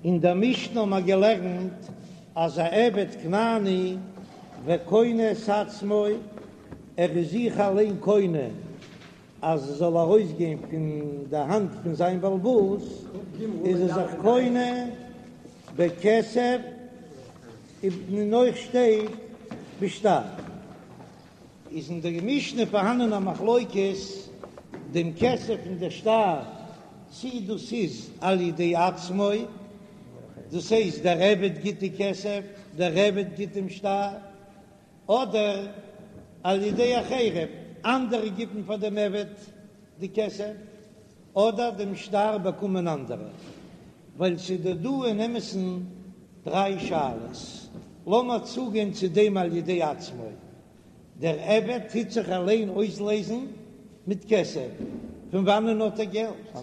אין דער משנה האבן מיר געלערנט אז א עבד כנעני וקונה את עצמו, ער איז זיך אליין קונה אז עס זאל ארויסגיין פון די האנט פון זיין בעל הבית, איז ער זיך קונה בכסף, און אויך שטייט בשטר. איז אין דער משנה פארהאנען א מחלוקת דעם כסף און דער שטר, צי דאס איז על ידי עצמו, דאס הייסט דער עבד גיט די כסף, דער עבד גיט דעם שטר, אדער על ידי אחרים, אנדערע גיבן פאר דעם עבד די כסף, אדער דעם שטר באקומען אנדערע, ווייל ס'איז דא דא אין אמת'ן דריי שאלות, לאמיר צוגיין צו דעם על ידי עצמו, דער עבד טוט זיך אליין אויסלייזן מיט כסף, פון וואנען האט ער געלט?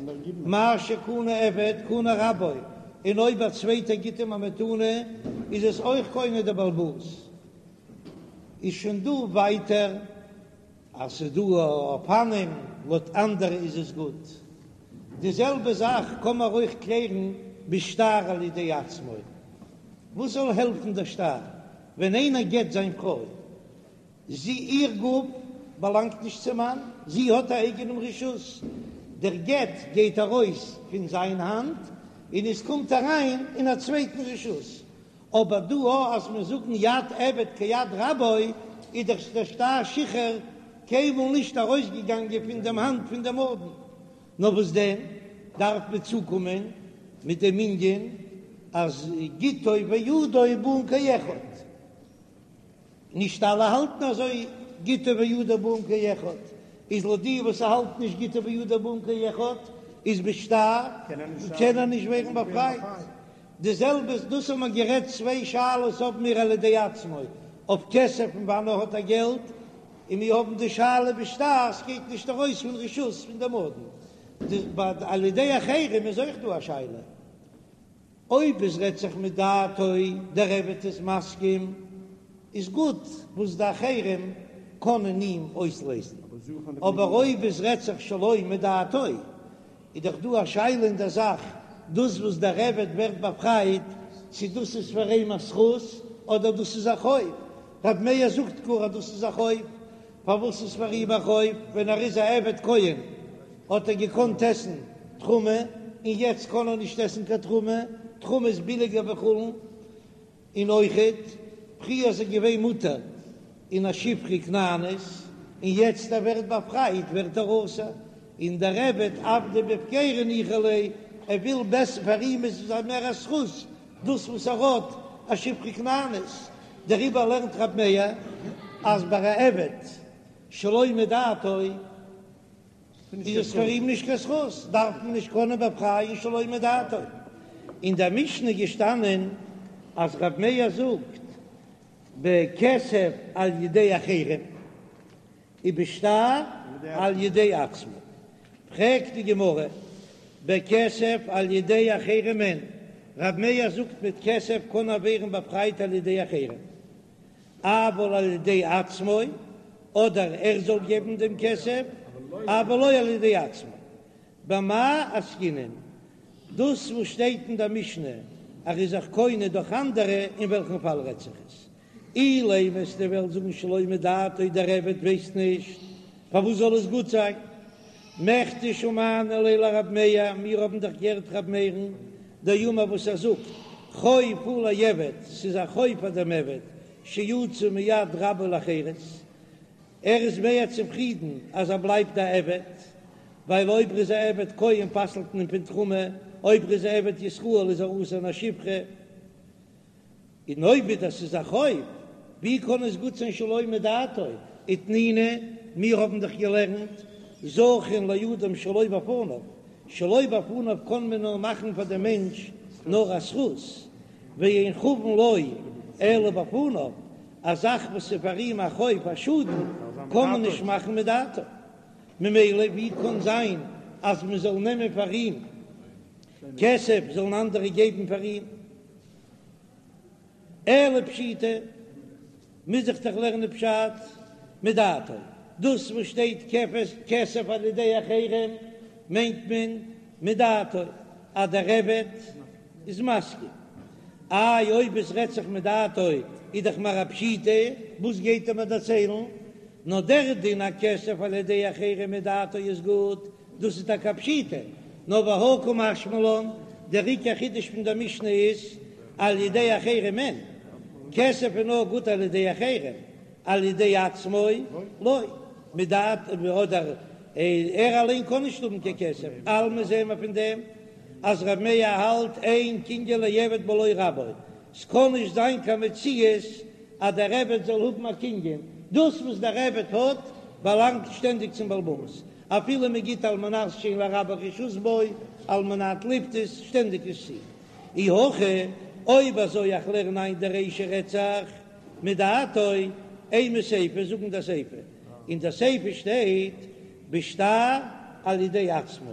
מה שקנה עבד קנה רבו, און אויב א צווייטער גיט אים א מתנה איז עס אויך קונה דער בעל הבית. איז שוין דא ווייטער אז ס'איז דא אופנים לויט אנדערע איז עס גוט. די זעלבע זאך קען מען אויך קלערן בשטר על ידי עצמו. וואס זאל העלפן דער שטר ווען איינער גט זיין פרוי? זי איר גוף באלאנגט נישט צום מאן, זי האט א אייגענעם רשות. דער גט גייט ארויס פון זיין האנט און עס קומט אריין אין א צווייטן רשות. אבער דא א אז מיר זאגן יד עבד כיד רבו, איז דאך דער שטר שחרור קיינמאל נישט ארויסגעגאנגען פון דעם האנט פון דעם אדון, נאר וואס דען דארף מען צוקומען מיט דעם ענין אז גיטו וידו באין כאחד. נישט אלע האלטן אזוי, גיטו וידו באין כאחד, איז לויט די וואס האלטן נישט גיטו וידו באין כאחד, איז בשטר קען ער נישט ווערן באפרייט. די זעלבע דאס האבן מיר גערעדט צוויי שאלות האבן מיר על ידי עצמו אויף כסף פון וואנען האט ער געלט, און מיר האבן די שאלה בשטר ס'גייט נישט ארויס פון רשות פון דעם אדון, ביי על ידי אחרים איז אויך דא א שאלה. אויב עס רעדט זיך מדעתו, דער עבד איז מסכים, איז גוט וואס די אחרים קענען אים אויסלייזן, אבער אויב עס רעדט זיך שלא מדעתו, איז דאך דא א שאלה אין דער זאך, דאס וואס דער עבד ווערט באפרייט, צו דאס איז פאר אים א זכות, אדער דאס איז א חוב. רב מאיר זאגט גאר אז דאס איז א חוב, פארוואס איז פאר אים א חוב? ווען ער איז א עבד כהן האט ער געקאנט עסן תרומה, און יעצט קען ער נישט עסן קיין תרומה, תרומה איז ביליגער ווי חולין, און אויכעט פריער איז ער געווען מותר אין א שפחה כנענית, און יעצט ער ווערט באפרייט ווערט ער אסור, און דער עבד עבדא בהפקירא ניחא ליה, ער וויל בעסער פאר אים איז עס מער א זכות דאס וואס ער האט א שפחה כנענית, דעריבער לערנט רב מאיר אז ביי א עבד שלא מדעתו איז עס פאר אים נישט קיין זכות, דארף מען נישט קענען באפרייען שלא מדעתו. אין דער משנה איז געשטאנען אז רב מאיר זאגט בכסף על ידי אחרים. ובשטר על ידי עצמו. פרעגט די גמרא, בכסף על ידי אחרים אין, רב מאיר זאגט מיט כסף קען ער ווערן באפרייט על ידי אחרים, אבל על ידי עצמו, אדער ער זאל געבן דעם כסף, אבל לא על ידי עצמו. במאי עסקינן? דאס וואס שטייט אין דער משנה אז ער איז זיך קונה דורך אנדערע, אין וועלכן פאל רעדט זיך עס? אילימא וועסטו וועלן זאגן שלא מדעתו דער עבד ווייסט נישט פארוואס זאל עס גוט זיין. מכדי שמענא ליה לרב מאיר, מיר האבן דאך געהערט רב מאיר'ן דאמר וואס ער זאגט חוב הוא לעבד, ס'איז א חוב פאר דעם עבד שיצא מיד רבו לחירות, ער איז מער צופרידן אז ער בלייבט א עבד, ווייל אויב ער איז א עבד כהן פסל'ט מען אים פון תרומה, אויב ער איז א עבד ישראל איז ער אסור אין א שפחה. און אויב דאס איז א חוב, ווי קען עס גוט זיין שלא מדעתו? ותנינא, מיר האבן דאך געלערנט, זכין לאדם שלא בפניו, שלא בפניו קען מען נאר מאכן פאר דעם מענטש נאר א זכות, ואין חבין לו אלא בפניו, א זאך וואס איז פאר אים א חוב א שאדן קען מען נישט מאכן מדעתו, ממילא ווי קען זיין אז מען זאל נעמען פאר אים כסף זאלן אנדערע געבן פאר אים? אלא פשיטא, מוז איך דאך לערנען פשט מדעתו, דאס וואס שטייט כסף על ידי אחרים מיינט מען מדעתו אז דער עבד. איז מסכים. איי אויב עס רעדט זיך מדעתו איז דאך מיר א פשיטא, וואס גייט ער מיר דערציילן? נאר דער דין אז כסף על ידי אחרים מדעתו איז גוט, דאס איז טאקע א פשיטא, נאר והא קא משמע לן, דער עיקר חידוש פון דער משנה איז על ידי אחרים אין, כסף איז נאר גוט על ידי אחרים, על ידי עצמו לא, מדעתו אדער ער אליין קען נישט האבן קיין כסף, אלמא זעהן מיר פון דעם אז ר' מאיר האלט אין קנין לעבד בלא רבו, ס'קען נישט זיין קיין מציאות אז דער עבד זאל האבן א קנין, דאס וואס דער עבד האט באלאנגט שטענדיג צום בעל הבית, אפילו מען גיט על מנת שאין לרבו רשות בו, על מנת לפדות, שטענדיג נישט צו. אי הכי, אויב אזוי איך לערן איין די רישא רעדט זיך מדעתו, אימא סיפא, זאג אין די סיפא, אין די סיפא שטייט בשטר על ידי עצמו,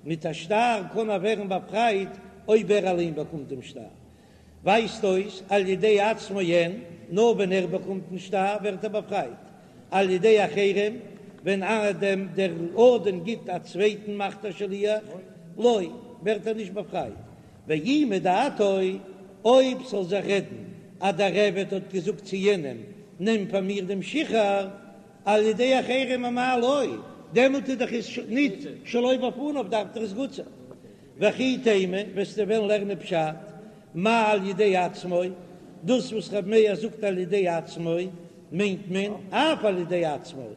מיט א שטר קען ער ווערן באפרייט אויב ער אליין באקומט דעם שטר, ווייזט אויס על ידי עצמו אין, נאר ווען ער באקומט דעם שטר ווערט ער באפרייט, על ידי אחרים ווען דער אדון גיט א צווייטן מאכט א שליח, לא, ווערט ער נישט באפרייט, ואי מדעתו, אויב ס'זאל זיך רעדן אז דער עבד האט געזאגט צו יענעם נעם פאר מיר דעם שחרור, על ידי אחרים אמאי לא, דעמאלט איז דאך עס ניט שלא בפניו דארף דאך עס גוט זיין. וכי תימא, וועסטו וועלן לערנען פשט, מאי על ידי עצמו, דאס וואס רב מאיר זאגט על ידי עצמו, מיינט מען אף על ידי עצמו,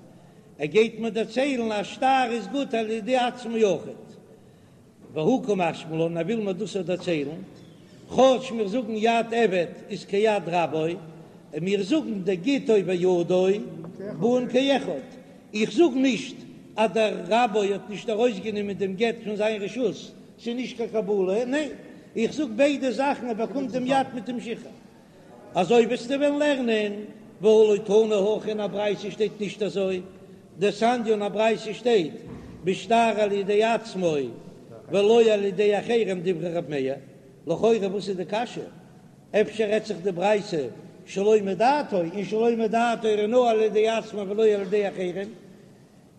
ער גייט מיר דערציילן אז שטר איז גוט על ידי עצמו אויכעט. והא קא משמע לן, ער וויל מיר דאס אויך דערציילן, כאטש מיר זאגן יד עבד איז כיד רבו, און מיר זאגן דגיטו וידו באין כאחד, איך זאג נישט אז דער רבו האט נישט ארויסגענומען דעם גט פון זיין רשות, ס'איז נישט קיין קבלה, ניין, איך זאג ביידע זאכן, ער באקומט דעם יד מיט דעם שחרור. אזוי וועסטו וועלן לערנען, והא לא תנא הכי אין א ברייתא שטייט נישט אזוי, דתניא אין א ברייתא שטייט בשטר על ידי עצמו ולא על ידי אחרים דברי ר' מאיר, לכאורה וואס איז די קשיא? אפשר רעדט זיך די ברייתא שלא מדעתו, און שלא מדעתו איז נאר על ידי עצמו ולא על ידי אחרים,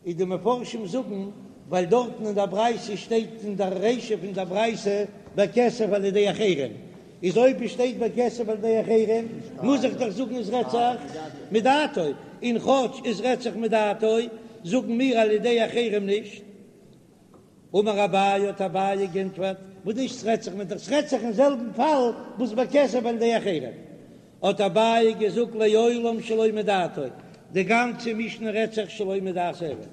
איז די מפרשים זאגן ווייל דארטן אין דער ברייתא שטייט אין דער רישא פון דער ברייתא בכסף על ידי אחרים, איז אויב עס שטייט בכסף על ידי אחרים מוז איך דאך זאגן עס רעדט זיך מדעתו, און כאטש עס רעדט זיך מדעתו זאגן מיר על ידי אחרים נישט. אמר אביי האט אביי גענטפערט, וואס נישט ס'רעדט זיך מיט ס'רעדט זיך אין זעלבן פאל וואס בכסף על ידי אחרים, האט אביי געזאגט לעולם שלא מדעתו, די גאנצע משנה רעדט זיך שלא מדעת עבד.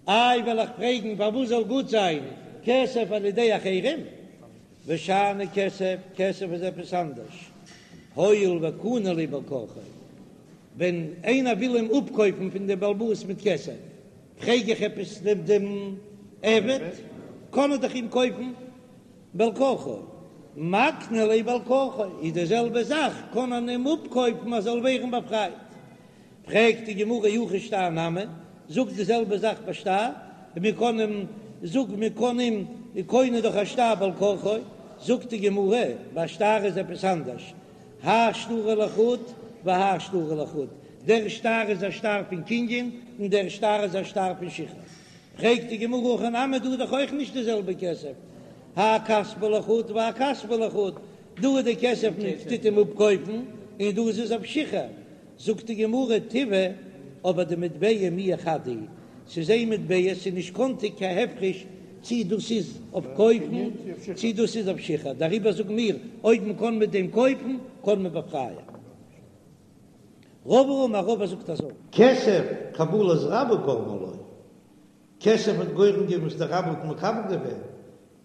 איי וועל איך פרעגן פארוואס זאל גוט זיין כסף על ידי אחרים, ושאני כסף, כסף איז עפעס אנדערש, הואיל וקני ליה בעל כרחו, ווען איינער וויל אים אפקויפן פון דעם בעל הבית מיט כסף, פרעג איך עפעס דעם דעם עבד, קען ער דאך אים קויפן בעל כרחו, מקני ליה בעל כרחו, איז די זעלבע זאך, קען מען אים אפקויפן אז זאל ווערן באפרייט. פרעגט די גמרא אי הכי שטר נמי, זאג די זעלבע זאך ביי שטר, מען קען אים, זאג מען קען אים קונה דורך א שטר בעל כרחו, זאגט די גמרא, ביי שטר איז עפעס אנדערש, האי שטרא לחוד והאי שטרא לחוד, דער שטר איז א שטר פון קנין און דער שטר איז א שטר פון שחרור. פרעגט די גמרא הכא נמי דא איז דאך אויך נישט די זעלבע כסף, האי כספא לחוד והאי כספא לחוד, דא איז די כסף מען טוט אים אפקויפן און דא איז עס אויף שחרור, זאגט די גמרא טיבעא אבער די מטבע מיהא חד הוא, ס'איז איין מטבע ס'איז נישט קאנטיג קיין הפרש צי דאס איז אויף קויפן צי דאס איז אויף שחרור, דעריבער זאגן מיר אויב מען קען מיט דעם קויפן קען מען באפרייען. רבא אמר רבא זאגט אזוי. כסף קבלת רבו גרמה לו, כסף האט גורם געווען וואס דער רב האט מקבל געווען,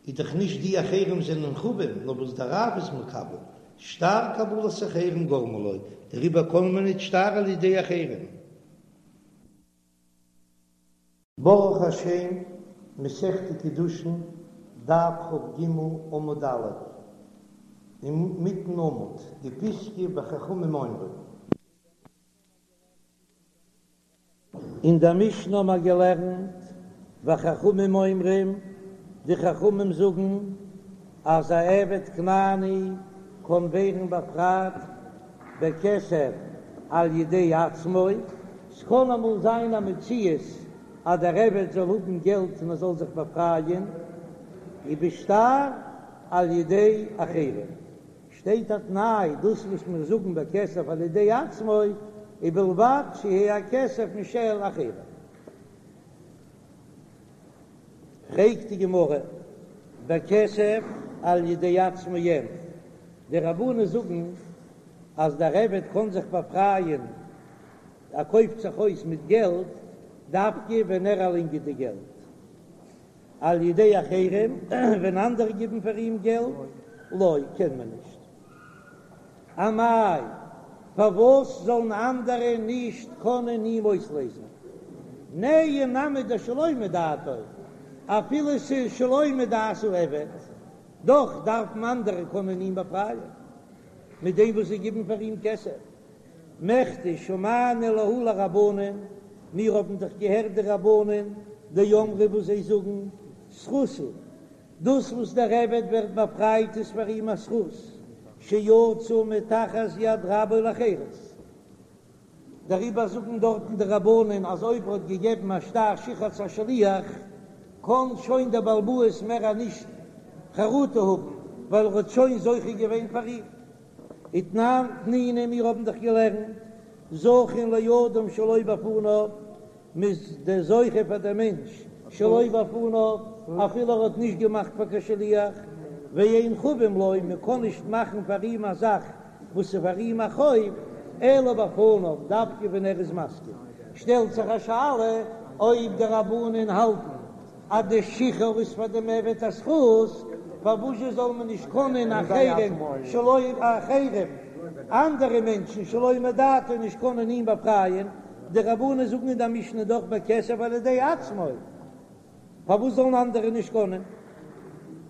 איז דאך נישט די אחרים זענען חבים, נאר וואס דער רב איז מקבל, שטר קבלת אחרים גרמה לו, דעריבער קען מען ניט שטר על ידי אחרים. ברוך השם, מסכת קידושין, דף כ"ג עמוד א', אינמיטן עמוד, די פיסקא וחכמים אומרים. אין דער משנה האבן מיר געלערנט, וחכמים אומרים, די חכמים זאגן אז א עבד כנעני קען ווערן באפרייט בכסף על ידי עצמו, ס'קען אמאל זיין א מציאות אז דער עבד זאל האבן געלט און ער זאל זיך באפרייען, ובשטר. על ידי אחרים. שטייט א תנאי, דאס וואס מיר זאגן בכסף על ידי עצמו, ובלבד שיהא הכסף משל אחרים. פרעגט די גמרא, בכסף על ידי עצמו אין, די רבנן זאגן אז דער עבד קען זיך באפרייען, ער קויפט זיך אויס מיט געלט, דווקא ווען ער אליין גיט די געלט, על ידי אחרים, ווען אנדערע גיבן פאר אים געלט, לא, קען מען נישט. אמאי, פארוואס זאלן אנדערע נישט קענען אים אויסלעזן? נהי נמי דשלא מדעתו, אפילו ס'איז שלא מדעת העבד, דאך דארפן אנדערע קענען אים באפרייען מיט דעם וואס זיי גיבן פאר אים כסף. מכדי שמענא להו לרבנן, מיר האבן דאך געהערט די רבנן דאמרי וואס זיי זאגן, זכות הוא, דאס וואס דער עבד ווערט באפרייט איז פאר אים א זכות, שיצא מתחת יד רבו לחירות. דעריבער זאגן דארטן די רבנן אז אויב ער האט געגעבן א שטר שחרור צו א שליח, קען שוין דער בעל הבית מער נישט חרטה האבן, ווייל ער האט שוין זוכה געווען פאר אים. ותנן תנינא מיר האבן דאך געלערנט זכין לאדם שלא בפניו, מ'איז דער זוכה פאר דער מענטש שלא בפניו אפילו ער האט נישט געמאכט פאר קיין שליח, ואין חבין לו, מען קען נישט מאכן פאר אים א זאך וואס איז פאר אים א חוב, אלא בפניו, דווקא ווען ער איז מסכים. שטעלט זיך א שאלה אויב די רבנן האלטן אז די שחרור איז פאר דעם עבד א זכות, פארוואזשע זאל מען נישט קענען אחרים שלא אחרים, אנדערע מענטשן שלא מדעתו נישט קענען אים באפרייען, די רבנן זאגן אין די משנה דאך בכסף על ידי עצמו, פארוואס זאלן אנדערע נישט קענען?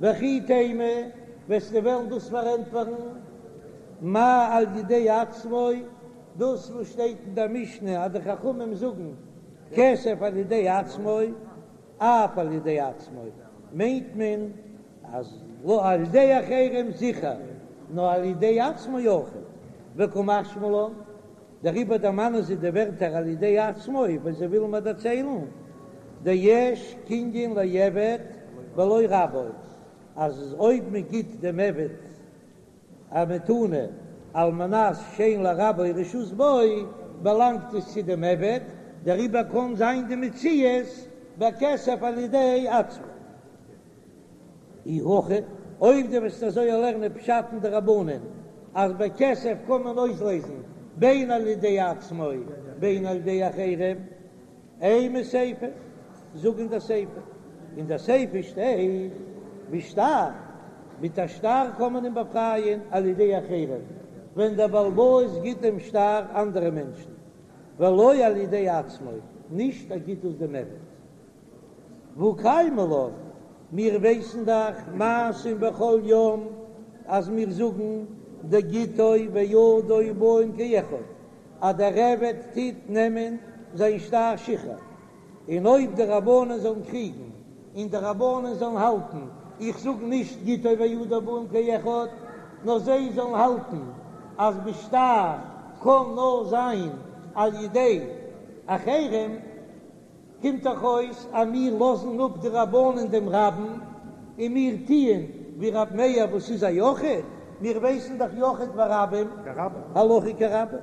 וכי תימא, וועסטו וועלן דאס פארענטפערן, מאי על ידי עצמו, דאס וואס שטייט אין די משנה אז די חכמים זאגן כסף על ידי עצמו, אף על ידי עצמו, מיינט מען אז לא על ידי אחרים זיכער, נאר על ידי עצמו אויך, וקא משמע לן, דעריבער דערמאנען זיי די ווערטער על ידי עצמו ווייל זיי ווילן מיר דערציילן דיש קנין לעבד בלא רבו, אז אויב מען גיט דעם עבד א מתנה על מנת שאין לרבו רשות בו, באלאנגט עס צו דעם עבד, דעריבער קען זיין די מציאות בכסף על ידי עצמו. אי הכי, אויב דו וועסט אזוי לערנען פשט אין די רבנן אז בכסף קען מען אויסלעזן בין על ידי עצמו בין על ידי אחרים, אימא סיפא, זאג אין די סיפא, אין די סיפא שטייט בשטר, מיט א שטר קען מען אים באפרייען על ידי אחרים, ווען דער בעל הבית גיט דעם שטר אנדערע מענטשן, ולא על ידי עצמו, נישט ער גיט עס דעם עבד. והא קיימא לן, מיר ווייסן דאך מעשים בכל יום אז מיר זאגן דגיטו וידו באין כאחד, אז דער עבד טוט נעמען זיין שטר שחרור, און אויב די רבנן זאלן קריגן און די רבנן זאלן האלטן, איך זאג נישט גיטו וידו באין כאחד, נאר זיי זאלן האלטן אז בשטר קען נאר זיין על ידי אחרים, קומט דאך אויס אז מיר לאזן אפ די רבנן דעם רבים און מיר טוען ווי רב מאיר וואס איז א יחיד, מיר ווייסן דאך יחיד ורבים הלכה כרבים.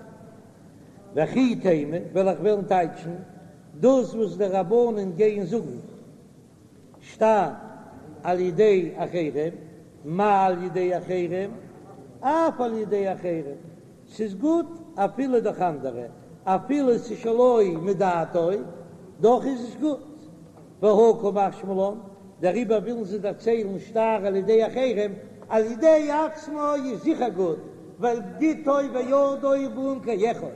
וכי תימא וועל איך וועלן טייטשן דאס וואס די רבנן גייען זאגן שטר על ידי אחרים, מה על ידי אחרים, אף על ידי אחרים, ס'איז גוט אפילו דורך אנדערע, אפילו ס'איז שלא מדעתו, דאך איז עס גוט. והא קא משמע לן, דעריבער ווילן זיי דערציילן שטר על ידי אחרים, על ידי עצמו איז זיכער גוט, ווייל גיטו וידו באין כאחד,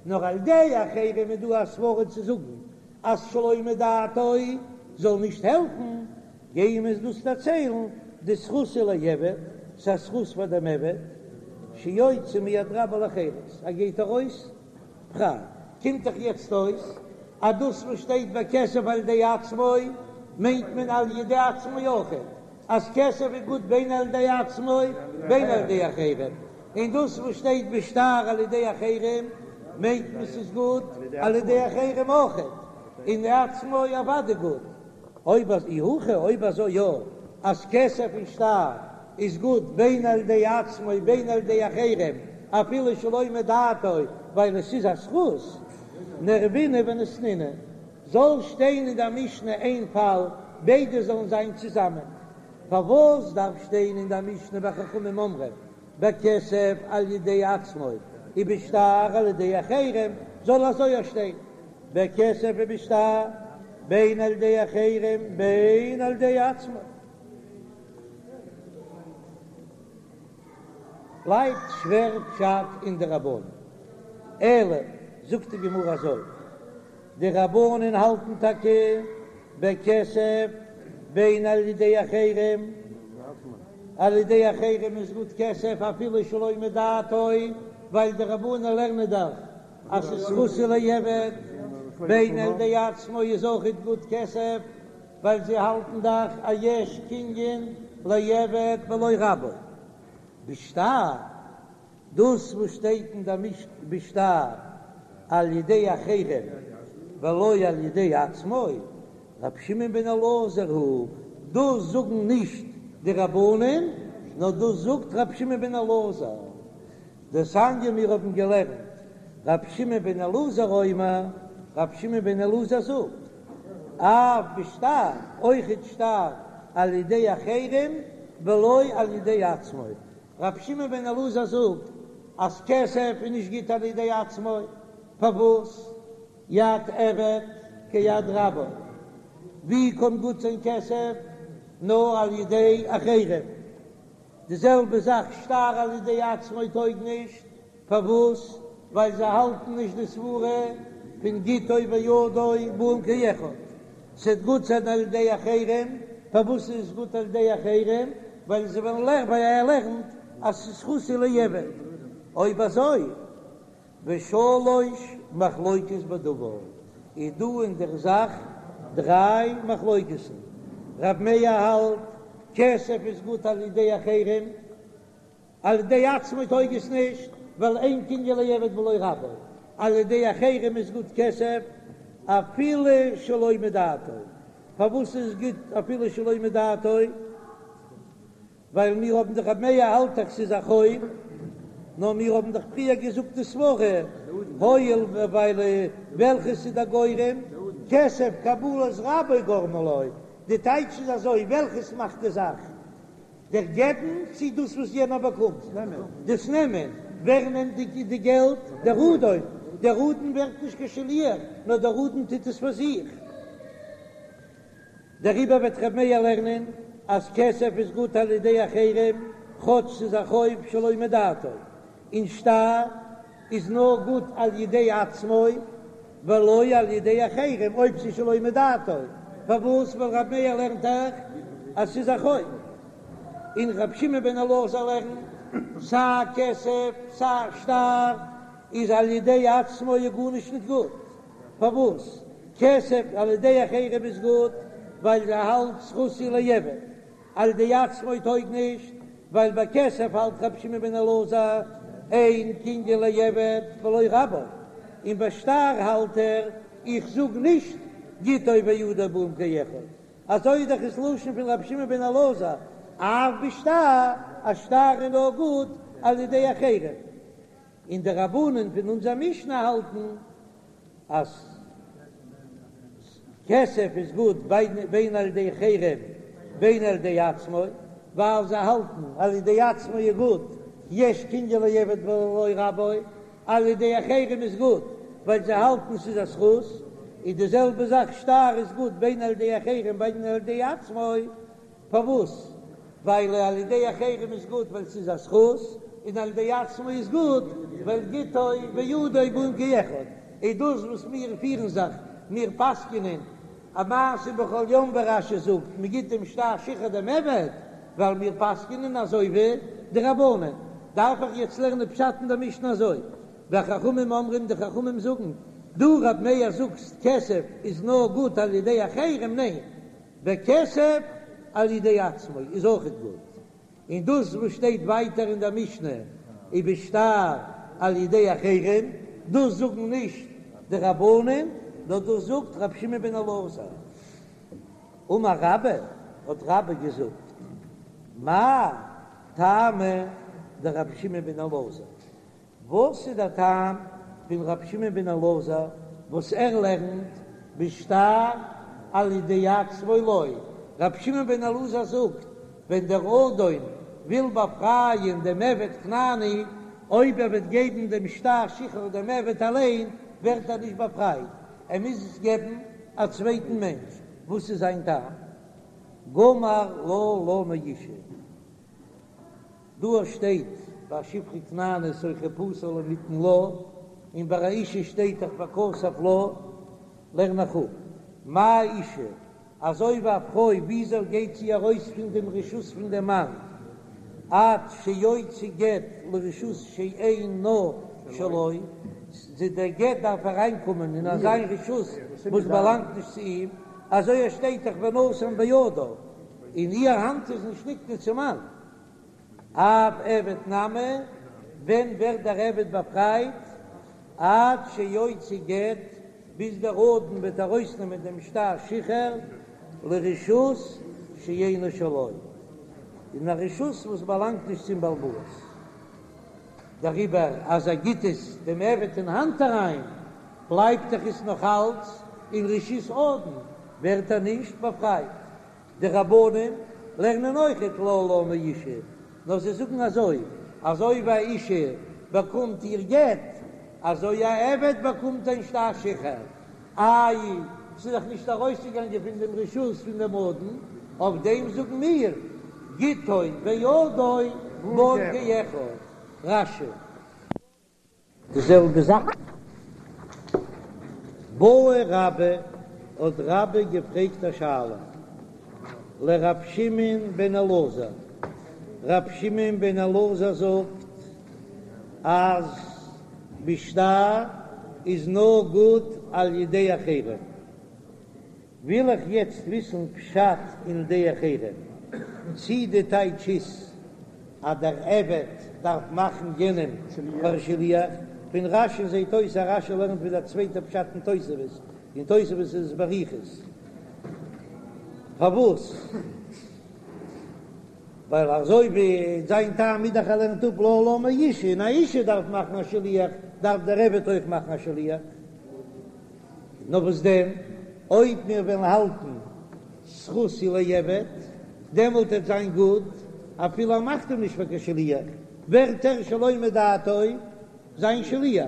נאר על ידי אחרים איז דא א סברא צו זאגן אז שלא מדעתו זאל נישט העלפן, גייען מיר דאס דערציילן דזכות הוא לעבד, ס'איז א זכות פאר דעם עבד, שיוצא מיד רבו לחירות, ער גייט ארויס פריי. קומט דאך יעצט אויס אז דאס וואס שטייט בכסף על ידי עצמו מיינט מען על ידי עצמו אויכעט, אז כסף איז גוט בין על ידי עצמו בין על ידי אחרים, און דאס וואס שטייט בשטר על ידי אחרים מיינט מען ס'איז גוט על ידי אחרים אויכעט, און עצמו אוודאי גוט. אויב אז אי הכי, אויב אזוי יא, אז כסף און שטר. איז גוט בין על ידי עצמו בין על ידי אחרים אפילו שלא מדעתו ווייל עס איז א זכות, נערבינהו וניתנינהו, זאל שטיין אין דער משנה איין פאל ביידע זאלן זיין צוזאמען, פארוואס דארף שטיין אין דער משנה וחכמים אומרים בכסף על ידי עצמו ובשטר על ידי אחרים, זאל אזוי אויך שטיין בכסף ובשטר בין על ידי אחרים בין על ידי עצמו. בלייבט שווער פשט אין די רבנן. אלא זאגט די גמרא אזוי, די רבנן האלטן טאקע בכסף בין על ידי אחרים, על ידי אחרים איז גוט כסף אפילו שלא מדעתו, ווייל די רבנן לערנען דאך אז ס'איז זכות הוא לעבד, בין על ידי עצמו איז אויכעט גוט כסף, ווייל זיי האלטן דאך אז יש קנין לעבד בלא רבו. בשטר, דאס וואס שטייט אין דער משנה בשטר על ידי אחרים ולא על ידי עצמו, רבי שמעון בן אלעזר היא, דאס זאגן נישט די רבנן, נאר דאס זאגט רבי שמעון בן אלעזר. דתניא מיר האבן געלערנט רבי שמעון בן אלעזר אומר, רבי שמעון בן אלעזר זאגט, אף בשטר, אויכעט שטר על ידי אחרים ולא על ידי עצמו. רבי שמעון בן אלעזר זאגט אז כסף איז נישט גוט על ידי עצמו, פארוואס? יד עבד כיד רבו, ווי קען גוט זיין כסף נאר על ידי אחרים? די זעלבע זאך שטר על ידי עצמו טויג נישט, פארוואס? ווייל זיי האלטן נישט די סברה פון גיטו וידו באין כאחד, ס'וועט גוט זיין על ידי אחרים, פארוואס איז עס גוט על ידי אחרים? ווייל זיי וועלן לערנען, ווייל ער לערנט אז ס'איז זכות הוא לעבד, אויב אזוי ושלש מחלוקות בדבר, איז דא אין דער זאך דריי מחלוקת'ן, רב מאיר האלט כסף איז גוט על ידי אחרים, על ידי עצמו טויג עס נישט, ווייל אין קנין לעבד בלא רבו, על ידי אחרים איז גוט כסף אפילו שלא מדעתו, פארוואס איז גוט אפילו שלא מדעתו? ווייל מיר האבן דאך רב מאיר האלט דאך ס'איז א חוב, נאר מיר האבן דאך פריער געזאגט די סברה, הואיל ווייל וועלכעס איז דער גורם, כסף קבלת רבו גרמא לו, די טייטש איז אזוי, וועלכעס מאכט די זאך, דער געבן צי דאס וואס יענער באקומט, דאס נעמען, ווער נעמט די געלט, דער אדון, דער אדון ווערט נישט קיין שליח, נאר דער אדון טוט עס פאר זיך. דעריבער וועט ר' מאיר לערנען אז כסף איז גוט על ידי אחרים כאטש ס'איז א חוב שלא מדעתו, און שטר איז נאר גוט על ידי עצמו ולא על ידי אחרים אויב ס'איז שלא מדעתו, פארוואס? ווייל ר' מאיר לערנט דאך אז ס'איז א חוב, און ר' שמעון בן אלעזר לערנט סיי כסף סיי שטר איז על ידי עצמו איז גארנישט נישט גוט. פארוואס כסף על ידי אחרים איז גוט? ווייל ער האלט זכות הוא לעבד, על ידי עצמו טויג נישט, ווייל ביי כסף האלט רבי שמעון בן אלעזר אין קנין לעבד בלא רבו, און ביי שטר האלט ער איך זאג נישט גיטו וידו באין כאחד, אזוי איז דאך עס לשון פון רבי שמעון בן אלעזר, אף בשטר, א שטר איז נאר גוט על ידי אחרים. און די רבנן פון אונזער משנה האלטן אז כסף איז גוט בין על ידי אחרים בין על ידי עצמו, ווייל זיי האלטן על ידי עצמו איז גוט, יש קנין לעבד בלא רבו, על ידי אחרים איז גוט ווייל זיי האלטן ס'איז א זכות, איז די זעלבע זאך שטר איז גוט בין על ידי אחרים בין על ידי עצמו, פארוואס? ווייל על ידי אחרים איז גוט ווייל ס'איז א זכות, און על ידי עצמו איז גוט ווייל גיטו וידו באין כאחד. איז דאס וואס מיר פירן זיך, מיר פסק'נען א מעשה בכל יום ווי רש"י זאגט, מ'גיט דעם שטר שחרור דעם עבד, ווייל מיר פסק'נען אזוי ווי די רבנן. דארף איך יעצט לערנען פשט אין דער משנה אזוי? וחכמים אומרים, די חכמים זאגן, דו רב מאיר זאגסט כסף איז נאר גוט על ידי אחרים, ניין, בכסף על ידי עצמו איז אויכעט גוט, און דאס וואס שטייט ווייטער אין דער משנה ובשטר על ידי אחרים, דאס זאגן נישט די רבנן, נאר דאס זאגט רבי שמעון בן אלעזר. אמר רבה, האט רבה געזאגט, מאי. טעמא דרבי שמעון בן אלעזר, וואס איז דער טעם פון רבי שמעון בן אלעזר וואס ער לערנט בשטר על ידי עצמו לא? רבי שמעון בן אלעזר זאגט, ווען דער אדון וויל באפרייען דעם עבד כנעני, אויב ער וועט געבן דעם שטר שחרור דעם עבד אליין, ווערט ער נישט באפרייט, ער מוז עס געבן א צווייטן מענטש. וואס איז זיין טעם? גמר לה לה מאשה. דא שטייט ביי שפחה כנענית או חופשה לא מיתן לה, און ביי א אשה שטייט דאך וכתב לה, לערן איך אפ, מה אשה, אזוי ווי א פרוי וויאזוי גייט זי ארויס פון דעם רשות פון דעם מאן, עד שיוציא גט לרשות שאינה שלו, דער גט דארף אריינקומען אין אזא רשות וואס באלאנגט נישט צו אים, אזוי עס שטייט דאך ונתן בידה. און איר האנט איז נישט נקנה צום מאן. אף עבד נמי, ווען ווערט דער עבד באפרייט? עד שיוציא גט, ביז דער אדון וועט ארויסנעמען דעם שטר שחרור לרשות שאינה שלו, אין א רשות וואס באלאנגט נישט צום בעל הבית. דעריבער אז ער גיט עס דעם עבד אין האנט אריין, בלייבט דאך עס נאך אלץ אין רשות אדון, ווערט ער נישט באפרייט. די רבנן לערנען אויכעט לה לה מאשה, נאר זיי זאגן אזוי, אזוי ווי א אשה באקומט איר גט, אזוי א עבד באקומט זיין שטר שחרור. איי, ס'איז דאך נישט ארויסגעגאנגען פון דעם רשות פון דעם אדון, אויף דעם זאגן מיר, גיטו וידו בן כאחד. רש"י. די זעלבע זאך. בעי רבה, האט רבה געפרעגט א שאלה לר' שמעון בן אלעזר, ר' שמעון בן אלעזר זאגט אז בשטר איז נאר גוט על ידי אחרים, וויל איך יעצט וויסן פשט אין די אחרים, צי די טייטש איז אז דער עבד דארף מאכן יענעם פאר שליח, פון רש"י זעהט אויס אז רש"י לערנט ווי דער צווייטער פשט אין תוספות, אין תוספות איז עס באריכות. פארוואס? ווייל אזוי ווי זיין טעם איז דאך ער לערנט אפ לה לה מאשה, און א אשה דארף מאכן א שליח, דארף דער עבד אויך מאכן א שליח. נאר וואס דען, אויב מיר וועלן האלטן זכות היא לעבד, דעמאלט וועט זיין גוט, אפילו ער מאכט אים נישט פאר קיין שליח, ווערט ער שלא מדעתו זיין שליח.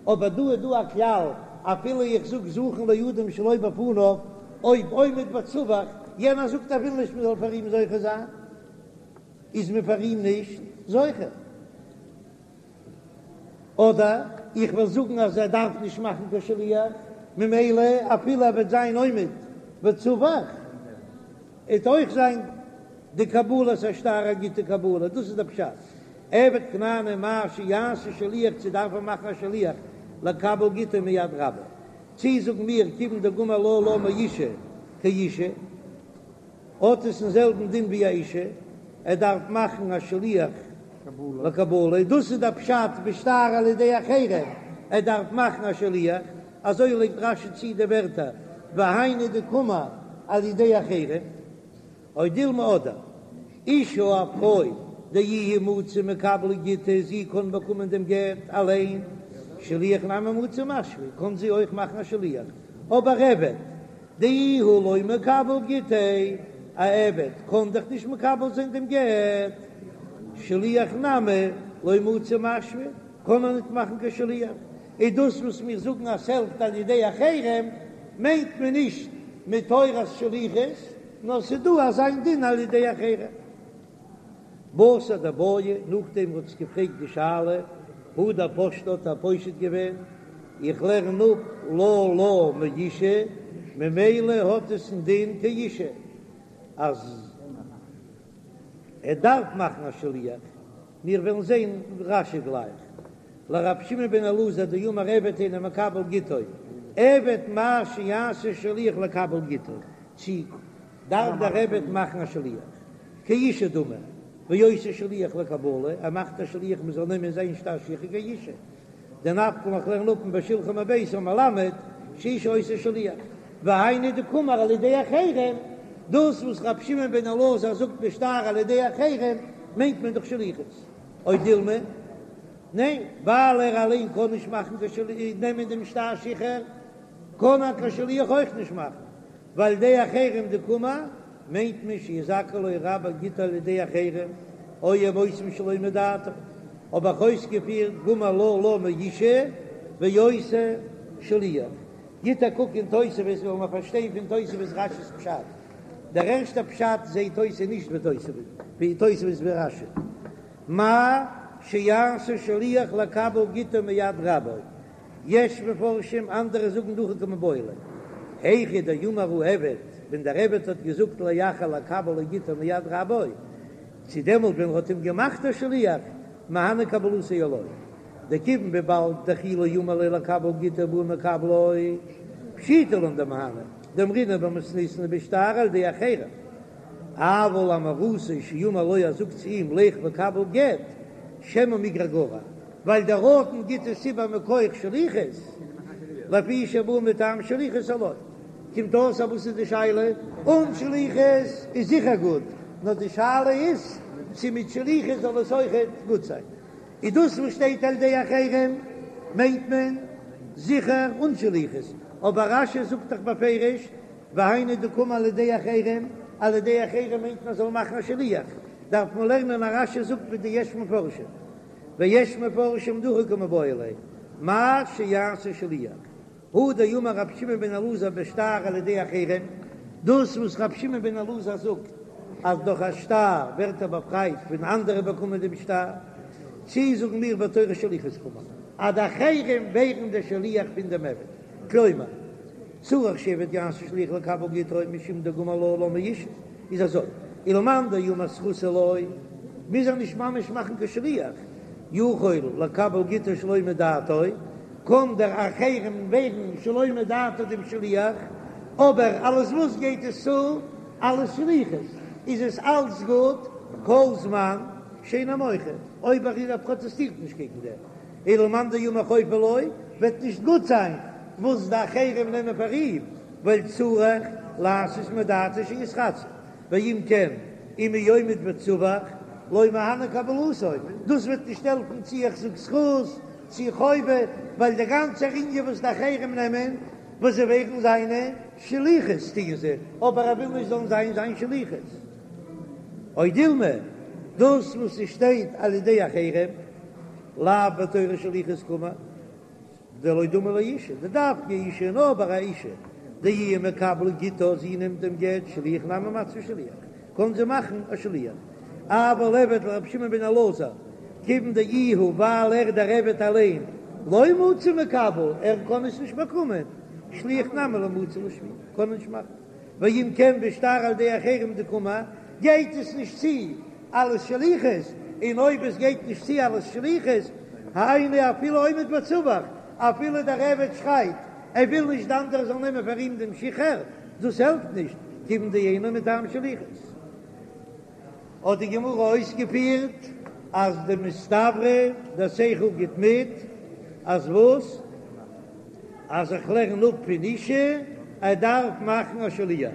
אבער דא איז דא א כלל, אפילו איך זאג זכין לאדם שלא בפניו, אויב עומד וצווח, יענער זאגט ער וויל נישט מען זאל פאר אים זוכה זיין, איז מען פאר אים נישט זוכה. אדער איך וועל זאגן אז ער דארף נישט מאכן קיין שליח, ממילא אפילו ער וועט זיין עומד וצווח, וועט אויך זיין די קבלת השטר א גוטע קבלה, דאס איז דער פשט, עבד כנעני מהו שיעשה שליח צו דארף ער מאכן א שליח לקבל גיטו מיד רבו, צי זאגן מיר כיוון דגמר לה לה מאשה כאשה. האט עס דעם זעלבן דין ווי א אישה, ער דארף מאכן א שליח לקבלה, דאס איז דער פשט בשטר על ידי אחרים, ער דארף מאכן א שליח, אזוי לייגט רש"י צו די ווערטער והיינו דקאמר על ידי אחרים, או דילמא אדער אשה א פרוי דאיהי מציא מקבלא גיטה זי קען באקומען דעם גט אליין, שליח נמי מציא משוי קען זי אויך מאכן א שליח, אבער עבד דאיהו לא מקבל גיטיה, א עבד קען דאך נישט מקבל זיין דעם גט, שליח נמי לא מצי משוי, קען ער ניט מאכן קיין שליח, איז דאס וואס מיר זאגן אז ס'העלפט על ידי אחרים, מיינט מען נישט מתורת שליחות, נאר ס'איז דא אזא דין על ידי אחרים. בתר דבעיא, נאכדעם וואס האט געפרעגט די שאלה, הדר פשטה האט ער פושט געווען, איך לערן אפ לה לה מאשה, ממילא האט עס א דין כאשה, אז ער דארף מאכן א שליח, מיר וועלן זען רש"י גלייך, לרבי שמעון בן אלעזר דאמר עבד אינו מקבל גיטו, עבד מהו שיעשה שליח לקבל גיטו, צי דארף דער עבד מאכן א שליח כאשה דמי, ועושה שליח לקבלה, ער מאכט א שליח מען זאל נעמען זיין שטר שחרור כאשה, דנפקא מינה איך לערן אפ מבשלחו מביתו מלמד שאשה עושה שליח, והיינו דקאמר על ידי אחרים, דאס וואס רבי שמעון בן אלעזר זאגט בשטר על ידי אחרים. מיינט מען דאך שליחות. או דילמא, ניין, ווייל ער אליין קען נישט מאכן קיין שליח, נעמען דעם שטר שחרור, קען ער קיין שליח אויך נישט מאכן, ועל ידי אחרים דקאמר, מיינט מען שיזכה לו רבו גיטו על ידי אחרים, או הם עושים שלא מדעתו, האב איך אויסגעפירט גמר לה לה מאשה ועושה שליח. גיט א קוק אין תוספות וועלן מיר פארשטיין פון תוספות רש"י'ס פשט. דער ערשטער פשט זעהט אויס איז נישט ווי תוספות, ווי תוספות ווי רש"י. מהו שיעשה שליח לקבל גיטו מיד רבו. יש מפרשים, אנדערע זאגן דהכי קמיבעיא ליה. היכא דאמר העבד, ווען דער עבד האט געזאגט לאחר לקבל לו גיטו מיד רבו, צו דעמאלט ווען ער האט אים געמאכט א שליח, מהני קבלתו או לא. דכיון וויבאלד דכי לא אמר ליה לקבל גיטו בעי מקבלו, פשיטא לן דמהני, דאמרינן במתניתין בשטר על ידי אחרים. אבל אמירתו שאמר לו ער זאגט צו אים לך וקבל גט, שמא מיגרע גרע, ווייל דער אדון גיט עס איבער מכח שליחות, לפי שבא מטעם שליחות או לא. קומט אויס אז וואס איז די שאלה? אן שליחות איז זיכער גוט, נאר די שאלה איז צו מיט שליחות זאל עס אויכעט גוט זיין. איז דאס וואס שטייט על ידי אחרים מיינט מען זיכער אן שליחות, אבער רש"י זאגט דאך בפירוש והיינו דקאמר על ידי אחרים, על ידי אחרים מיינט מען זאל מאכן א שליח, דארף מען לערנען אז רש"י זאגט ווי די יש מפרשים, ויש מפרשים דהכי קמיבעיא ליה, מהו שיעשה שליח, הא דאמר רבי שמעון בן אלעזר בשטר על ידי אחרים, דאס וואס רבי שמעון בן אלעזר זאגט אז דורך א שטר ווערט ער באפרייט ווען אנדערע באקומען דעם שטר, צי זאגן מיר בתורת שליחות קאמר אז די אחרים ווערן דער שליח פון דעם עבד, כלומר צריך שעבד יעשה שליח לקבל גיטו משום דגמר לה לה מאשה, איז אזוי, ולמאן דאמר זכות הוא לו, מוז ער נישט ממש מאכן קיין שליח, יכול לקבל גיטו שלא מדעתו, קען דער אחרים ווערן שלא מדעתו דעם שליח, אבער אלס וואס גייט עס צו? אלס שליחות איז עס אלץ גוט כל זמן שאינו מוחה, אויב ער פראטעסטירט נישט קעגן דעם, ולמאן דאמר חובה הוא לו, וועט נישט גוט זיין וואס די אחרים נעמען פאר אים, ווייל צריך לעשות מדעתו שיתרצה. ואם כן, אם הוא עומד וצווח, לא מהני קבלתו, דאס וועט נישט העלפן צי איך זאג זכות צי חובה, ווייל דער גאנצער ענין וואס די אחרים נעמען, וואס זיי ווערן זיינע שליחות טוען זיי, אבער ער וויל נישט זאלן זיין זיין שליחות. או דילמא, דאס וואס עס שטייט על ידי אחרים, לאו בתורת שליחות קאמר. דלא דמי לאשה, דדווקא אשה נאר ביי א אשה, דאיהי מקבלא גיטה, זי נעמט דעם גט, שליח נמי מציא שליח, קען זי מאכן א שליח. אבל עבד לרבי שמעון בן אלעזר, כיוון דאיהו ווייל ער דער עבד אליין, לא מצי מקבל, ער קען עס נישט באקומען, שליח נמי לא מצי לשוויי, קען ער נישט מאכן. ואם כן בשטר על ידי אחרים דקאמר, גייט עס נישט צו אלס שליחות, און אויב עס גייט נישט צו אלס שליחות, היינו אפילו עומד וצווח, אפילו דער עבד שרייט ער וויל נישט די אנדערע זאלן נעמען פאר אים דעם שחרור, דאס העלפט נישט, כיוון דאינו מטעם שליחות. האט די גמרא אויסגעפירט אז דמסתברא דער שכל גיט מיט אז וואס? אז איך לערן אפ פון אשה ער דארף מאכן א שליח.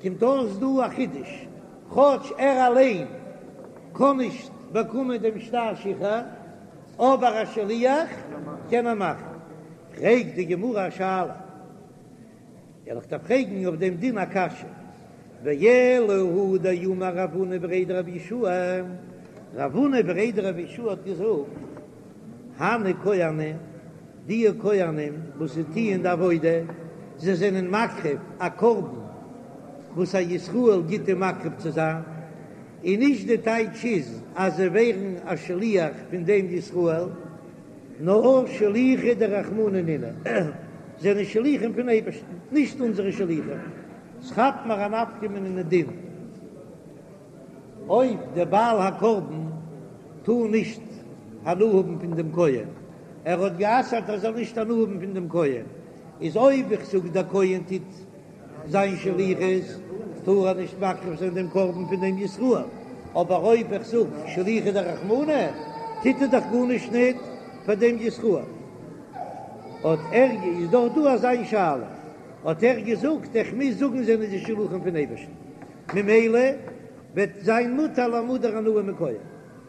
קומט אויס דא א חידוש, כאטש ער אליין קען נישט באקומען דעם שטר שחרור, אבער א שליח קען ער מאכן. פרעגט די גמרא א שאלה. וועל איך דיר פרעגן אויף דעם דין א קשיא, ואלא הא דאמר רב הונא בריה דרב יהושע, רב הונא בריה דרב יהושע האט געזאגט, הני כהני, די כהנים וואס זיי טוען די עבודה, זיי זענען מקריב א קרבן וואס א ישראל גיט אים מקריב צו זיין, און נישט די טייטש איז אז זיי ווערן א שליח פון דעם ישראל, נאר שליחי דרחמנא נינהו, זענען שליחים פון אייבערשטן, נישט אונזערע שליחים. ס'כאפט מיר א נפקא מינה אין דין אויב דער בעל הקרבן טאר נישט הנאה האבן פון דעם כהן, ער האט גע'אסר'ט ער זאל נישט הנאה האבן פון דעם כהן, איז אויב איך זאג דער כהן טוט זיין שליחות טאר ער נישט מקריב זיין דעם קרבן פון דעם ישראל, אבער אויב איך זאג שליחא דרחמנא טוט ער דאך גארנישט ניט פאר דעם ישראל. האט ער איז דאך דא אזא שאלה, האט ער געזאגט איך מוז זאגן זענען די שלוחים פון אייבערשטן, ממילא. וועט זיין מותר למודר הנאה מכהן.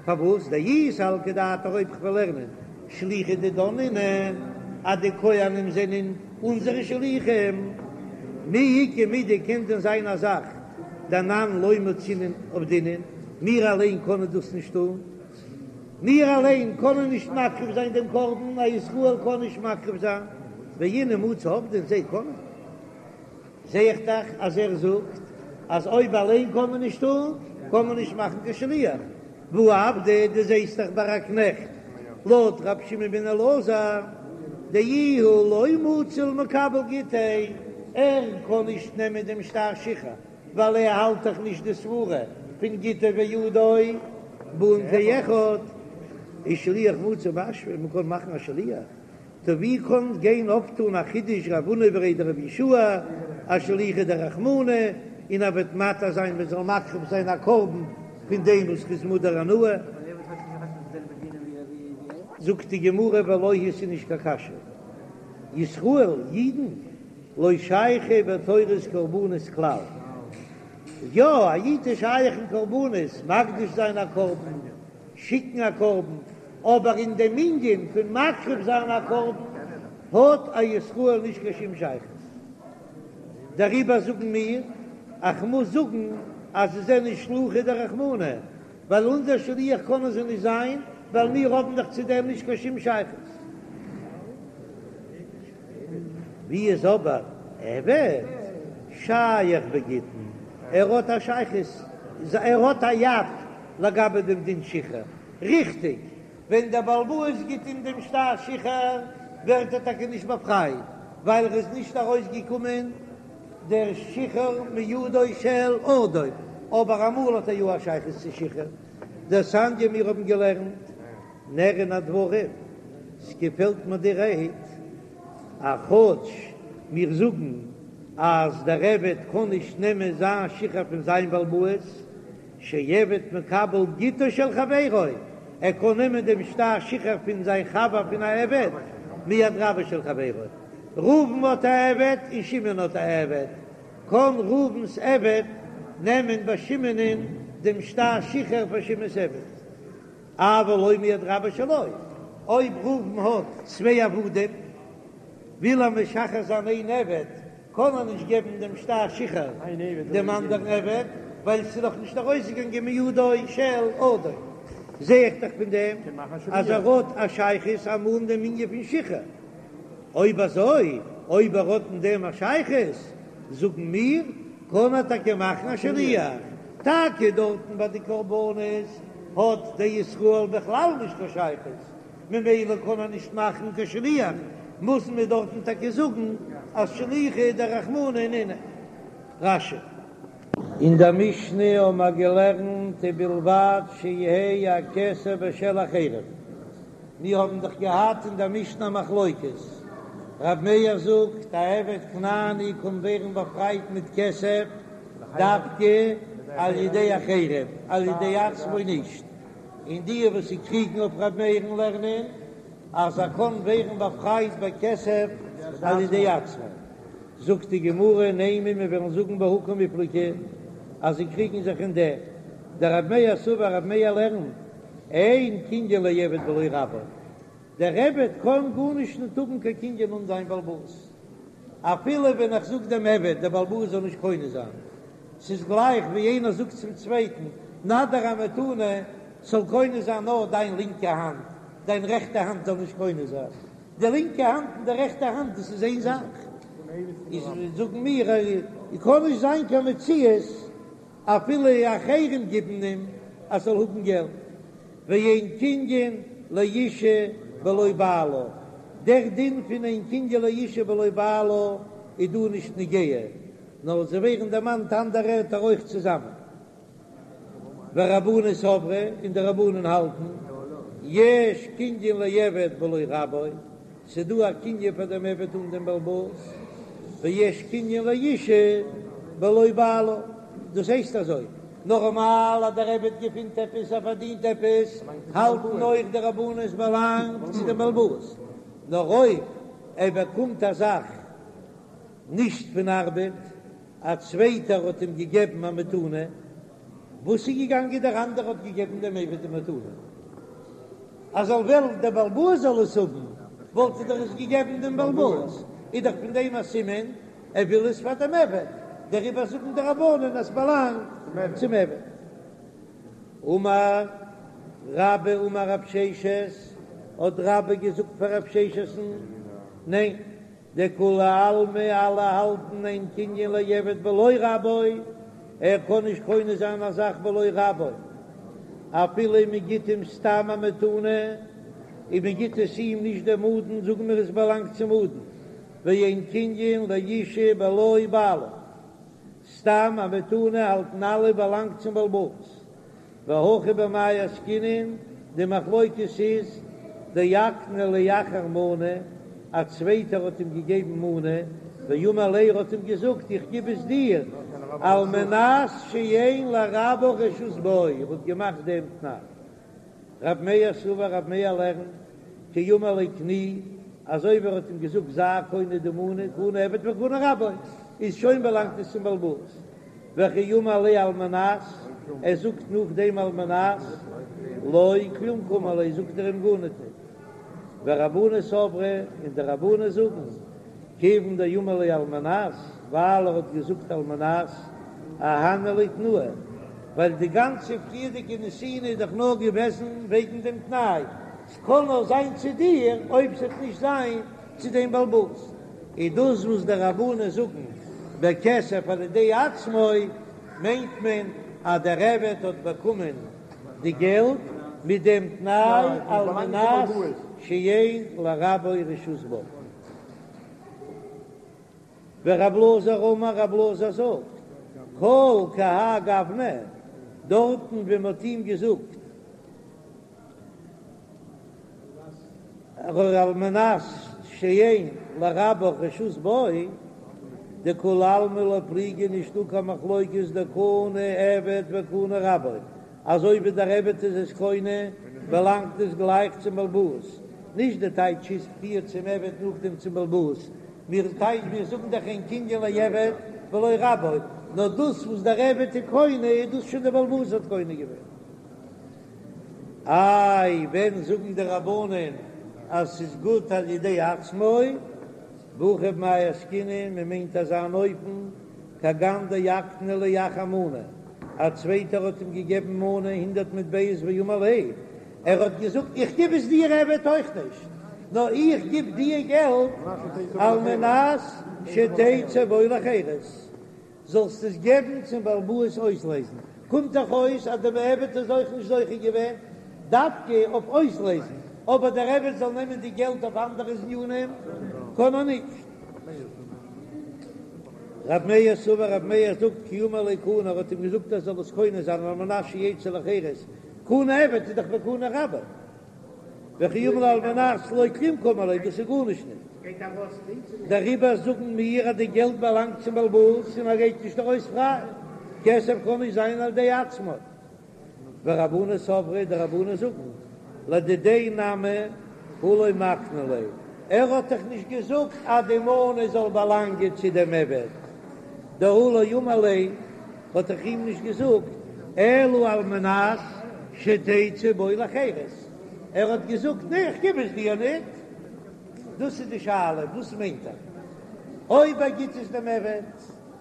פארוואס דאי סלקא דעתך אויב כ'וועל לערנען שליחי דידן נינהו אז די כהנים זענען אונזערע שליחים, מי איכא מידי קען דען זיין א זאך דאנן לא מצינן עבדינן, מיר אליין קענען דאס נישט טון, מיר אליין קענען נישט מקריב זיין דעם קרבן, א ישראל קען נישט מקריב זיין, ואינהו מצו עבדין זיי קענען. זע איך דאך אז ער זאגט אז אויב אליין קען מען נישט טון, קען מען נישט מאכן קיין שליח. והא עבדא, דו זעסט דאך ביי א קנעכט, לויט רבי שמעון בן אלעזר, דאיהו לא מצי למקבל גיטיה, ער קען נישט נעמען דעם שטר שחרור, ווייל ער האלט דאך נישט די סברה פון גיטו וידו באין כאחד, איז שליח מצי משווי, מען קען מאכן א שליח. טא ווי קען גיין אויפטון א חידוש רב הונא בריה דרב יהושע אז שליחא דרחמנא און ער וועט מתיר זיין מען זאל מקריב זיין א קרבן פון דעם וואס איז מודר הנאה? זאגט די גמרא ולא היא ס'איז נישט קיין קשיא, ישראל אידן לא שייכי בתורת קרבנות כלל, יא א איד איז שייך אין קרבנות, מקדיש זיין א קרבן, שיקן א קרבן, אבער אין דעם ענין פון מקריב זיין א קרבן האט א ישראל נישט קיין שום שייכות. דעריבער זאגן מיר, איך מוז זאגן אז זיי זענען שלוחי דרחמנא, ווייל אונזער שליח קענען זיי נישט זיין, ווייל מיר האבן דאך צו דעם נישט קיין שום שייכות. ווי איז אבער עבד שייך בגיטין? ער האט א שייכות, ער האט א יד לגבי דעם דין שחרור. ריכטיג, ווען דער בעל הבית גיט אים דעם שטר שחרור ווערט ער טאקע נישט באפרייט, ווייל ער איז נישט ארויסגעקומען דער שחרור מידו של אדון, אבער אמאל האט ער יא א שייכות צו שחרור. דתניא מיר האבן געלערנט נראין הדברים, ס'געפעלט מיר די רייד, אז כאטש מיר זאגן אז דער עבד קען נישט נעמען זיין שחרור פון זיין בעל הבית, שעבד מקבל גיטו של חברו, ער קען נעמען דעם שטר שחרור פון זיין חבר פון א עבד, מיד רבו של חברו. ראובן האט א עבד און שמעון האט א עבד, קען ראובן'ס עבד נעמען ביי שמעונ'ען דעם שטר שחרור פאר שמעון'ס עבד. אבל לא מיד רבו שלו, אויב ראובן האט צוויי עבדים, וויל ער משחרר זיין איין עבד, קען ער נישט געבן דעם שטר שחרור דעם אנדערן עבד, ווייל ס'איז נאך נישט ארויסגעגאנגען מידו של אדון. זע איך דאך פון דעם אז ער האט א שייכות אמאל אין דעם ענין פון שחרור. אויב אזוי, אויב ער האט אין דעם א שייכות, זאגן מיר, קען ער טאקע מאכן א שליח. טאקע דארטן ביי די קרבנות האט דער ישראל בכלל נישט קיין שייכות, ממילא קען ער נישט מאכן קיין שליח, מוזן מיר דארטן טאקע זאגן אז שליחא דרחמנא נינהו. רש"י. אין דער משנה האבן מיר געלערנט ובלבד שיהא הכסף בשל אחרים, מיר האבן דאך געהאט אין דער משנה א מחלוקת, רב מאיר זאגט א עבד כנעני קען ווערן באפרייט מיט כסף דווקא על ידי אחרים, על ידי עצמו נישט, און די וואס זיי קריגן אויף ר' מאיר'ן לערנען אז ער קען ווערן באפרייט בכסף על ידי עצמו, זאגט די גמרא נימא מיר וועלן זאגן בהא קמיפלגי אז זיי קריגן זיך אין דעם, דרב מאיר סבר רב מאיר לערנט אין קנין לעבד בלא רבו, דער עבד קען גארנישט נישט האבן קיין קנין אן זיין בעל הבית, אפילו ווען איך זאג דעם עבד דער בעל הבית זאל נישט קונה זיין, ס'איז גלייך ווי איינער זאגט צום צווייטן, נא דיר א מתנה, ס'זאל קונה זיין נאר דיין לינקע האנט, דיין רעכטע האנט זאל נישט קונה זיין. די לינקע האנט און די רעכטע האנט דאס איז איין זאך. איז זאגן מיר, קען נישט זיין קיין מציאות אפילו אחרים גיבן אים אז זאל האבן געלט. ואין קנין לאשה בלא בעלה, דער דין פון אין קנין לאשה בלא בעלה איז דא נישט נוגע. נאר זיי ווערן דערמאנט אנדערע ערטער אויך צוזאמען. ורבנן סברי, און די רבנן האלטן, יש קנין לעבד בלא רבו, ס'דא א קנין פאר דעם עבד אן דעם בעל הבית, ויש קנין לאשה בלא בעלה, דאס הייסט אזוי, נארמאל אז דער עבד געפינט עפעס, ער פארדינט עפעס, האלטן אויך די רבנן עס באלאנגט צו דעם בעל הבית, נאר אויב ער באקומט א זאך נישט פון ארבעט, א צווייטער האט אים געגעבן א מתנה. וואס איז געגאנגען דער אנדערע האט געגעבן דעם עבד די מתנה אז זאל וועלן דער בעל הבית זאל עס האבן וואלט ער דאך עס געגעבן דעם בעל הבית, איז דאך פון דעם א סימן ער וויל עס פאר דעם עבד, דעריבער זאגן די רבנן אז ס'באלאנגט צום עבד. אמר רבה אמר רב ששת, האט רבה געזאגט פאר רב ששת'ן, ניין, דכולי עלמא אלע האלטן אין קנין לעבד בלא רבו, ער קען נישט קונה זיין א זאך בלא רבו, אפילו מען גיט אים סתם א מתנה, און מען גיט עס אים נישט דעם אדון, זאגן מיר עס באלאנגט צום אדון, ואין קנין לאשה בלא בעלה. סתם א מתנה האלטן אלע באלאנגט צום בעל הבית. והכא במאי עסקינן, די מחלוקת איז דאקני ליה אחר מנה, א צווייטער האט אים געגעבן מנה, ואמר ליה ער האט אים געזאגט איך גיב עס דיר על מנת שאין לרבך רשות בו, ער האט געמאכט דעם תנאי. רב מאיר סבר רב מאיר לערנט כי אמר ליה קני, אזוי ווי ער האט אים געזאגט זיי קונה די מנה, קנה עבד וקנה רבו, איז שוין באלאנגט עס צום בעל הבית, וכי אמר ליה על מנת, ער זאגט נאכדעם על מנת, לא כלום קאמר ליה זאגט ער אים גארניט ניט. ורבנן סברי, און די רבנן זאגן, כיוון דאמר ליה על מנת, ווייל ער האט געזאגט על מנת, אהני ליה תנאיה, ווייל די גאנצע פריערדיגע נתינה איז דאך נאר געוועזן וועגן דעם תנאי, ס'קען נאר זיין צו דיר אויב ס'וועט נישט זיין צו דעם בעל הבית. איז דאס וואס די רבנן זאגן בכסף על ידי עצמו, מיינט מען אז דער עבד האט באקומען די געלט מיט דעם תנאי על מנת שאין לרבו רשות בו. ורב אלעזר אמר רב אלעזר זאגט, כל כהאי גוונא, דארטן ווי מען האט אים געזאגט על מנת שאין לרבך רשות בו, דכולי עלמא לא פליגי נישטא קיין מחלוקת דקנה עבד וקנה רבו, אזוי ווי דער עבד איז עס קונה באלאנגט עס גלייך צום בעל הבית, נישט די טייטש איז פריער צום עבד נאכדעם צום בעל הבית, מיר טייטש מיר זאגן דאך אין קנין לעבד בלא רבו, נאר דאס וואס דער עבד איז קונה איז דאס שוין דער בעל הבית האט קונה געווען. איי ווען זאגן די רבנן אז ס'איז גוט על ידי עצמו? והכא במאי עסקינן, מען מיינט אזא אן אופן, כגון דאקני ליה אחר מנה, א צווייטער האט אים געגעבן מנה הונדערט מטבעות ואמר ליה, ער האט געזאגט איך גיב עס דיר עבד אויך נישט, נאר איך גיב דיר געלט על מנת שתצא בו לחירות, זאלסט עס געבן צום בעל הבית אויסלייזן, קומט דאך אויס אז דער עבד איז אויך נישט זוכה געווען דווקא אויף אויסלייזן, אבער דער עבד זאל נעמען די געלט אויף אנדערע ענינים קען ער נישט. רב מאיר סבר רב מאיר זאגט כי אמר ליה קני ער האט אים געזאגט ער זאל עס קונה זיין על מנת שיצא לחירות, קנה עבד איז דאך וקנה רבו. וכי אמר ליה על מנת לא כלום קאמר ליה, דאס איז גארנישט נישט. דעריבער זאגן מיר אז די געלט באלאנגט צום בעל הבית און ער גייט נישט ארויס פריי. כסף קען נישט זיין על ידי עצמו. ורבנן סברי, די רבנן זאגן, לדידיה נמי הא לא מקני ליה, ער האט דאך נישט געזאגט אז די מנה זאל באלאנגען צו דעם עבד, דהא לא אמר ליה, האט דאך אים נישט געזאגט אלא על מנת שתצא בו לחירות, ער האט געזאגט נע איך גיב עס דיר ניט, דאס איז די שאלה וואס מיינט ער אויב ער גיט עס דעם עבד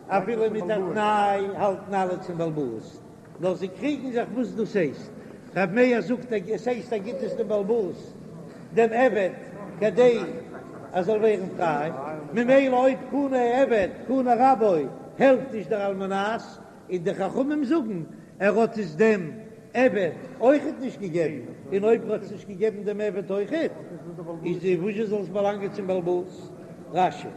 אפילו מיט א תנאי האלטן אלע צום בעל הבית, נאר זיי קריגן זיך וואס דאס הייסט, רב מאיר זאגט עס הייסט ער גיט עס דעם בעל הבית דעם עבד כדי ער זאל ווערן פריי, ממילא אויב קנה עבד קנה רבו העלפט נישט דער על מנת, און די חכמים זאגן ער האט עס דעם עבד אויכעט נישט געגעבן, און אויב ער האט עס נישט געגעבן דעם עבד אויכעט, איז וואזשע זאל עס באלאנגען צום בעל הבית? רש"י.